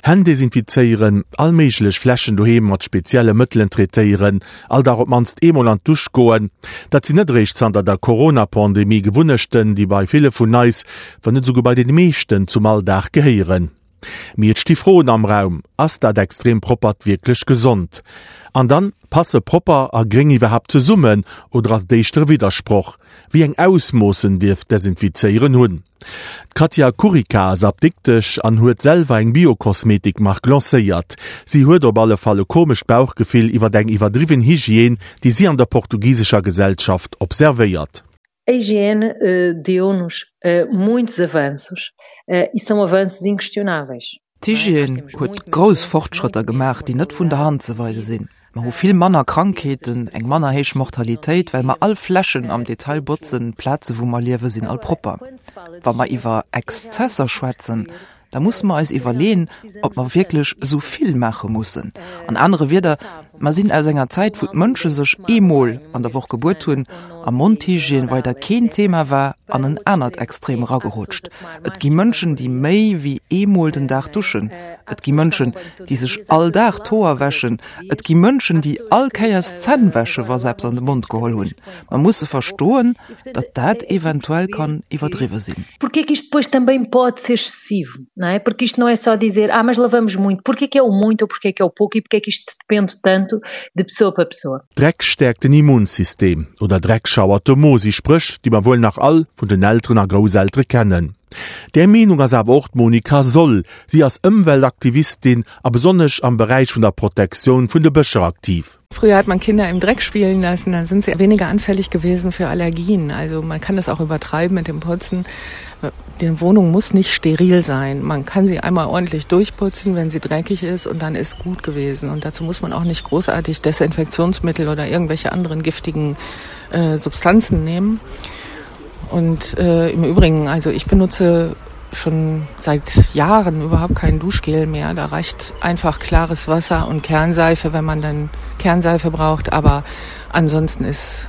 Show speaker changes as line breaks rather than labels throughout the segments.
Hänn desinfizéieren, all méiglech Flächen doheem mat spezielle Mëttelen traitéieren, all Dag op d'mannst eemol an d'Dusch goen, dat sinn net eréischt zanter der Corona-Pandemie Gewunnechten, déi bei ville vun eis, wann net esouguer bei den meeschten, zum Alldag gehéieren. Mee et sti Froen am Raum, Ass dat extrem Proppert wierklech gesond? An dann, passe propper a gréng iwwerhaapt zesummen oder ass et éischter e Widdersproch? Wéi eng Ausmoossen dierf d'Desinfizéieren hunn? D'Katja Kurica ass Apdiktesch an huet selwer eng Biokosmetik-Mark lancéiert. Si huet op alle Fall e komescht Bauchgefill iwwer eng iwwerdriwwen Hygiène, déi si an der portugisescher Gesellschaft observéiert.
A hygiene deu-nos muitos avanços e são avanços inquestionáveis.
D'Hygiène huet grouss Fortschrëtter gemaach, déi net vun der Hand ze weise sinn. Mer hu vill manner Krankheeten, eng manner héich Mortalitéit, well mer all Flächen am Detail botzen, d'Plaze wou mer liewe sinn all propper. Wa mer iwwer Exzesser schwätzen, da musse mer eis iwwerleeën, ob mer wierklech esou vill maache mussen. An anere Wieder, mer sinn aus enger Zäit, wou d'Mënsche sech eemol an der Woch gebuet hunn a Mondhygiène weider keen Thema war, an en anert Extrem eragerutscht. Et gi Mënschen, déi méi wéi eemol den Dag duschen. Et gi Mënschen, déi sech all Dag d'Hoer wäschen. Et gi Mënschen, déi all Kéiers d'Zänn wäsche wa se eppes an de Mond geholl hunn. Mer musse verstoen, datt dat eventuell kann iwwerdriwwe sinn.
Porque é que isto depois também pode ser excessivo, não é? Porque isto não é só dizer, ah, mas lavamos muito. Porque é que é o muito ou porque é que é o pouco e porque é que isto depende tanto de pessoa para pessoa.
Dreck stäerkt den Immunsystem oder Dreck schauert de Mo si Spréch, déi mer wuel nach all vun den Elteren a Grousseltere kennen. Där Meenung ass awer och d'Monika Soll. Si ass Ëmweltaktivistin a besonnesch am Beräich vun der Protektioun vun de Bëscher aktiv.
Früher hat man Kinder im Dreck spielen lassen, dann sind sie weniger anfällig gewesen für Allergien. Also man kann das auch übertreiben mit dem Putzen. Die Wohnung muss nicht steril sein. Man kann sie einmal ordentlich durchputzen, wenn sie dreckig ist und dann ist gut gewesen. Und dazu muss man auch nicht großartig Desinfektionsmittel oder irgendwelche anderen giftigen äh, Substanzen nehmen. Und äh, im Übrigen, also ich benutze schon seit Jahren überhaupt kein Duschgel mehr. Da reicht einfach klares Wasser und Kernseife, wenn man dann Kernseife braucht. Aber ansonsten ist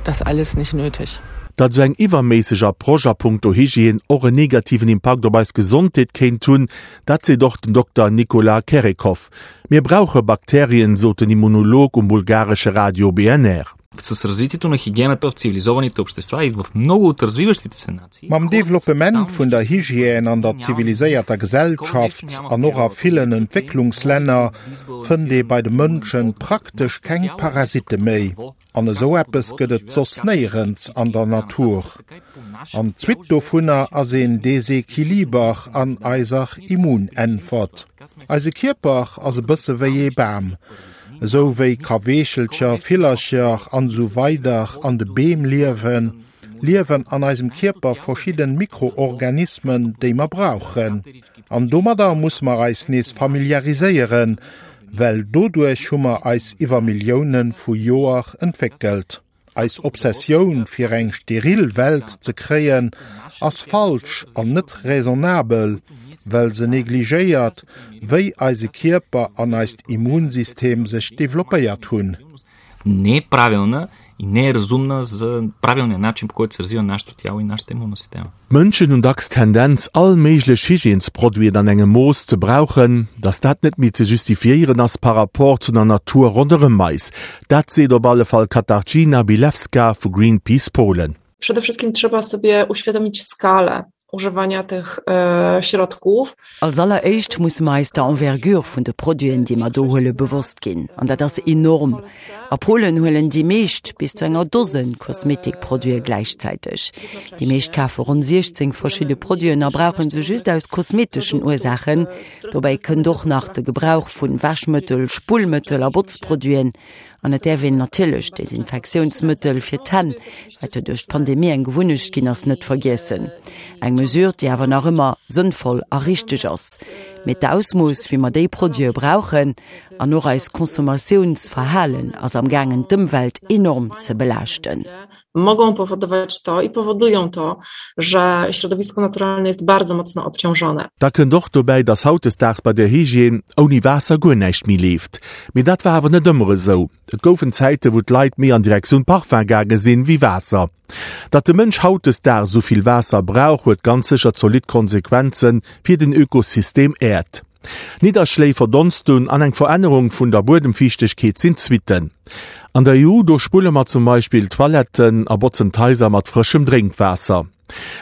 das alles nicht nötig.
Datt esou eng iwwerméisseg Approche a punkto Hygiène och en negativen Impakt op eis Gesondheet kéint hunn, dat seet och den Dokter Nicolas Kerekov. Mir brauche Bakterien, sot den Immunolog um bulgaresche Radio BNR.
С развитието на хигиената в цивилизованите общества и в много от развиващите се нации.
Mam Developpement vun der Hygiène an der ziviliséierter Gesellschaft an och a villen Entwécklungslänner fënnt ee bei de Mënschen praktesch keng Parasitte méi. An esou eppes gëtt et soss néierens an der Natur. An d'Suite dovunner ass een Desequiliber an eiser Immunäntwert. Eise Kierper ass e bësse wéi ee Bam. Esou wéi Kaweechelcher, Villercher an esou weider an de Beem liewen, liewen an eisem Kierper verschidden Mikroorganismen, déi mer brauchen. An domadder musse mer eis nees familiariséieren, well doduerch hu mer eis iwwer Millioune vu Joer entwéckelt. Eis Obsessioun fir eng steril Welt ze kréien ass falsch an net raisonnabel, well se negligéiert, wéi eise Kierper an eist Immunsystem sech developpéiert hunn.
Не е правилна и не е разумна за правилния начин, по който се развива нашето тяло и нашата имунна система.
D'Mënschen hunn dacks d'Tendenz, all méiglech Hygiènesproduiten an engem Mooss ze brauchen, dass dat net méi ze justifiéieren ass par rapport zu der Natur ronderëm eis. Dat seet op alle Fall d'Katarzyna Bilewska vu Greenpeace Polen.
Przede wszystkim trzeba sobie uświadomić skalę używania tych środków.
Als alleréischt musse mer eis der Envergure vun de Produiten, déi mer do huelen, bewosst ginn. An dat ass enorm. A Polen huelen déi meescht bis zu enger Dosen Kosmetikproduite gläichzäiteg. Déi meescht kafe ronn 16 verschidde Produiten a brauche se just aus kosmeteschen Ursaachen. Dobäi kënnt och nach de Gebrauch vun Wäschmëttel, Spullmëttel a Botzproduiten. An et däerf een natierlech d'Desinfektiounsmëttel fir d'Hänn, wat jo duerch d'Pandemie eng Gewunnecht ginn ass, net vergiessen. Eng Mesure, déi awer nach ëmmer sënnvoll a richteg ass. Mee d'Ausmooss, wéi mer déi Produite brauchen, an och eist Consommatiounsverhalen ass amgaangen, d'Ëmwelt enorm ze belaaschten.
Mogą powodować to i powodują to, że środowisko naturalne jest bardzo mocno obciążone.
Da kënnt och dobäi, dass hautdesdaags bei der Hygiène ouni Waasser guer näischt méi leeft. Mee dat war awer net ëmmer esou. Et goufen Zäiten, wou d'Leit méi an Direktioun Parfum gaange sinn, wéi Waasser. Datt de Mënsch hautdesdaags esou vill Waasser brauch, huet ganz sécher zolidd Konsequenze fir den Ökosystem Äerd. Nidderschléi, Verdonstung an eng Verännerung vun der Buedemfiichtegkeet sinn d'Suitten. An der EU, do spulle mer zum Beispill d'Toiletten a botzen d'Haiser mat frëschem Drénkwaasser.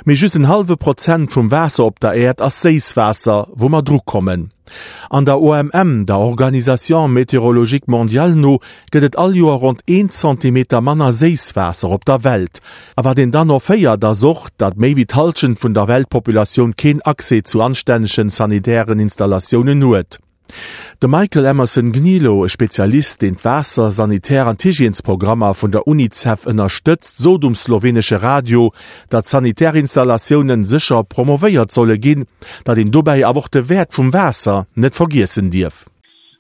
Mee just en hallwe Prozent vum Waasser op der Äerd ass Séisswaasser, wou mer dru kommen. An der OMM, der Organisation Météorologique Mondiale no, gëtt et all Joer ronn een Zentimeter manner Séisswaasser op der Welt. A wat een dann och héiert, ass och, datt méi wéi d'Hallschent vun der Weltpopulatioun keen Accès zu anstännegen sanitären Installatiounen huet. De Michael Emerson Gnilo, e Spezialist, deen d'Waasser-, Sanitär an d'Hygiènesprogrammer vun der UNICEF ënnerstëtzt, sot um slowenesche Radio, datt sanitär Installatiounen sécher promovéiert solle ginn, datt een dobäi awer och de Wäert vum Waasser net vergiessen dierf.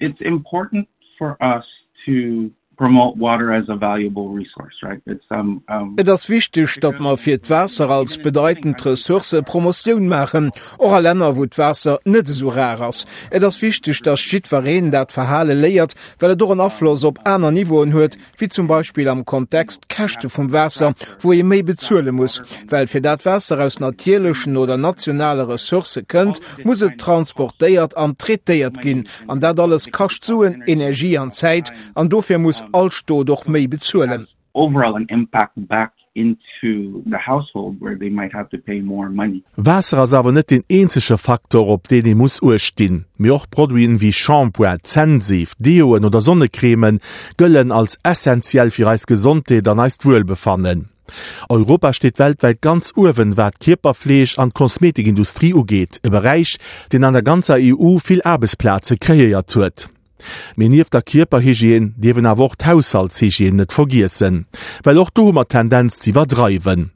It's important for us to promote water as a valuable resource, right? It's um, um Et ass wichteg, datt mer fir d'Waasser als bedeitend Ressource Promotioun maachen, och a Länner, wou d'Waasser net esou rar ass. Et ass wichteg, datt jiddwereen dat Verhale léiert, well et och en Afloss op aner Niveauen huet, wéi zum Beispill am Kontext d'Käschte vum Waasser, wou ee méi bezuele muss. Well fir dat Waasser aus natierlechen oder nationale Ressourcë kënnt, muss et transportéiert an traitéiert ginn. An dat alles kascht Suen, Energie an Zäit, an dofir muss all Stot och méi bezuelen.
Overall an impact back into the household where they might have to pay more money. Waasser ass awer net deen eenzege Faktor, op deen ee muss Uecht dinn. Mee och Produiten wéi Shampoing, Zännseef, Deoen oder Sonnecrèmen gëllen als essentiell fir eis Gesondheet an eist Wuelbefannen. Europa steet weltwäit ganz uewen, wat d'Kierperfleeg an d'Kosmetikindustrie ugeet, e Beräich, deen an der ganzer EU vill Aarbechtsplaze kreéiert huet. Mee nieft der Kierperhygiène dierf een awer och d'Haushaltshygiène net vergiessen, well och do hu mer d'Tendenz z'iwwerdreiwen.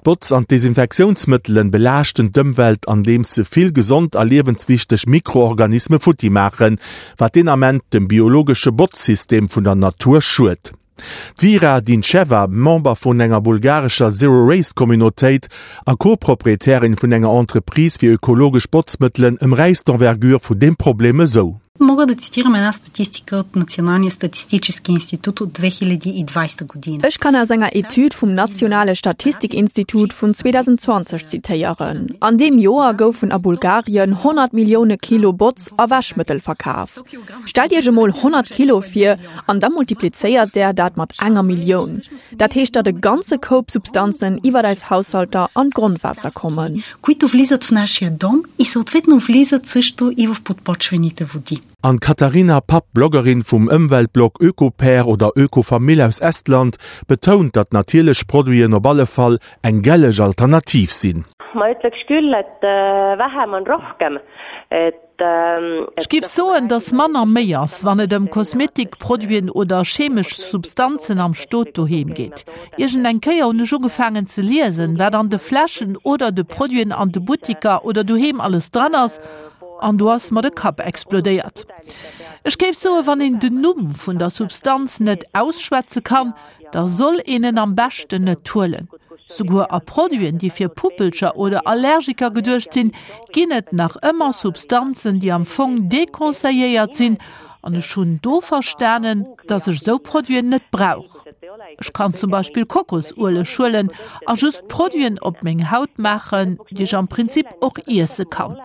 D'Botz an d'Desinfektiounsmëttelen belaaschten d'Ëmwelt andeems se vill gesond a liewenswichteg Mikroorganisme futti maachen, wat deen Ament dem biologesche Botzsystem vun der Natur schued. D'Vira Dincheva, Member vun enger bulgarescher Zero-Waste-Communautéit a Co-Proprietärin vun enger Entreprise fir ökologesch Botzmëttelen, ëmräisst d'Envergure vun deem Problem esou.
Мога да цитирам една статистика от Националния статистически институт от 2020 година.
Ech kann aus enger Etüd vum Nationale Statistikinstitut vun 2020 zitéieren. An deem Joer goufen a Bulgarien 100 Millioune Kilo Botz a Wäschmëttel verkaf. Stellt Iech emol 100 Kilo vir an da multiplizéiert Der dat mat enger Millioun. Dat heescht, datt e ganze Koup Substanzen iwwer eis Haushalter an d'Grondwaasser kommen.
Които влизат в нашия дом и съответно влизат също и в подпочвените води.
An d'Katharina Papp, Bloggerin vum Ëmweltblog Ökopair oder Ökofamill aus Estland, betount, datt natierlech Produiten op alle Fall eng gelleg Alternativ sinn.
Ma ütleks küll, et vähem on rohkem, et
Ech géif soen, dass manner méi ass, wann et ëm Kosmetikproduiten oder chemesch Substanzen am Stot doheem geet. Iergend eng Kéier hunn ech ugefaangen ze liesen, wat an de Fläschen oder de Produiten an de Buttiker oder doheem alles dran ass, an do ass mer de Kapp explodéiert. Ech géif soen, wann een den Numm vun der Substanz net ausschwätze kann, da soll een en am beschten net huelen. Souguer a Produiten, déi fir Puppelcher oder Allergiker geduecht sinn, ginn et nach ëmmer Substanzen, déi am Fong deconseilléiert sinn, an ech hunn do verstanen, dass ech esou Produiten net brauch. Ech kann zum Beispill Kokosueleg huelen a just Produiten op meng Haut maachen, déi ech am Prinzip och iesse kann.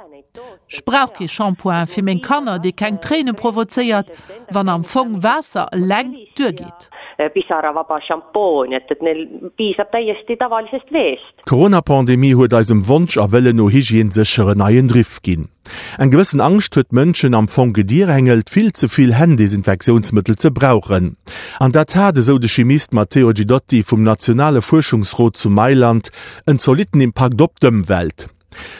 Ech brauch kee Shampoing fir meng Kanner, dee keng Tréine provozéiert, wann am Fong Waasser eleng duergeet.
Pisaravaba šampoon, et, et neil piisab täiesti tavalisest veest.
D'Corona-Pandemie huet eisem Wonsch a Wëllen no Hygiène sécher en neien Driff ginn. Eng gewëssen Angscht huet d'Mënschen am Fong gedirängelt, vill ze vill Hänn-Desinfektiounsmëttel ze brauchen. An dat hat, esou de Chimist Matteo Guidotti vum nationale Fuerschungsrot zu Mailand, en zolitten Impakt op d'Ëmwelt.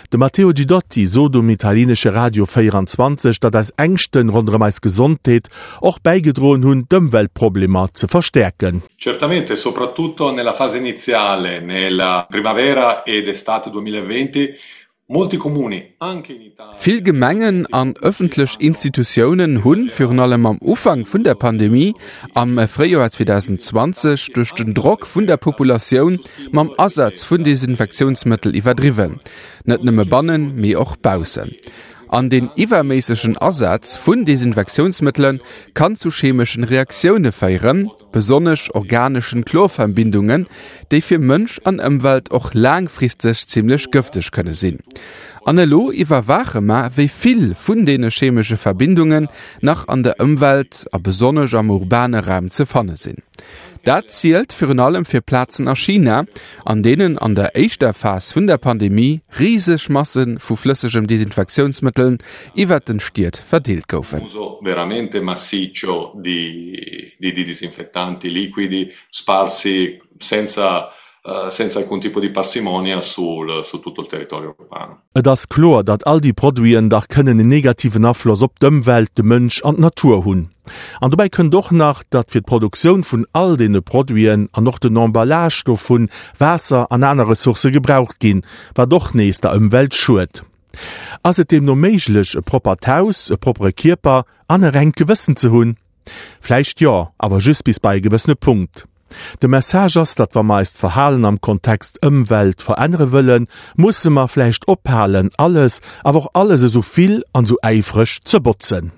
De Matteo Guidotti sot um italienesche Radio 24, datt eis Ängschten ronderëm eis Gesondheet och bäigedroen hunn, d'Ëmweltproblemer ze verstäerken.
Certamente, soprattutto nella fase iniziale, nella primavera ed estate 2020, molti comuni, anche in Italia.
Vill Gemengen an ëffentlech Institutiounen hunn, virun allem am Ufank vun der Pandemie am Fréijoer 2020, duerch den Drock vun der Populatioun mam Asaz vun Desinfektiounsmëttel iwwerdriwwen, net nëmme bannen, mee och baussen. An deen iwwerméissegen Asaz vun Desinfektiounsmëttele kann zu chemeschen Reaktioune féieren, besonnesch organeschen Chlorverbindungen, déi fir Mënsch an Ëmwelt och laangfristeg zimmlech gëfteg kënne sinn. An elo iwwerwaache mer, wéi vill vun deene chemesche Verbindungen nach an der Ëmwelt a besonnesch am urbane Raum ze fanne sinn. Dat zielt virun allem fir Plazen a China, an deenen an der éischter Phas vun der Pandemie riseg Masse vu flëssegem Desinfektiounsmëtteln iwwert den Stied verdeelt goufen.
Uso veramente massiccio di di disinfettanti liquidi sparsi senza senza alcun tipo di parsimonia sul su tutto il territorio urbano.
Et ass kloer, datt all déi Produiten dach kënnen en negativen Afloss op d'Ëmwelt, de Mënsch an d'Natur hunn. An dobäi kënnt och nach, datt fir d'Produktioun vun all deene Produiten an och den Emballage dovun Waasser an aner Ressourcë gebraucht ginn, wat och nees der Ëmwelt schued. Ass et deemno méiglech, e proppert Haus, e proppere Kierper an e rengt Gewëssen ze hunn? Vläicht jo, awer just bis bei e gewëssene Punkt. De Message ass, datt wa mer eist Verhalen am Kontext Ëmwelt verännere wëllen, musse mer vläicht ophalen, alles, awer och alles esou vill an esou äifreg ze botzen.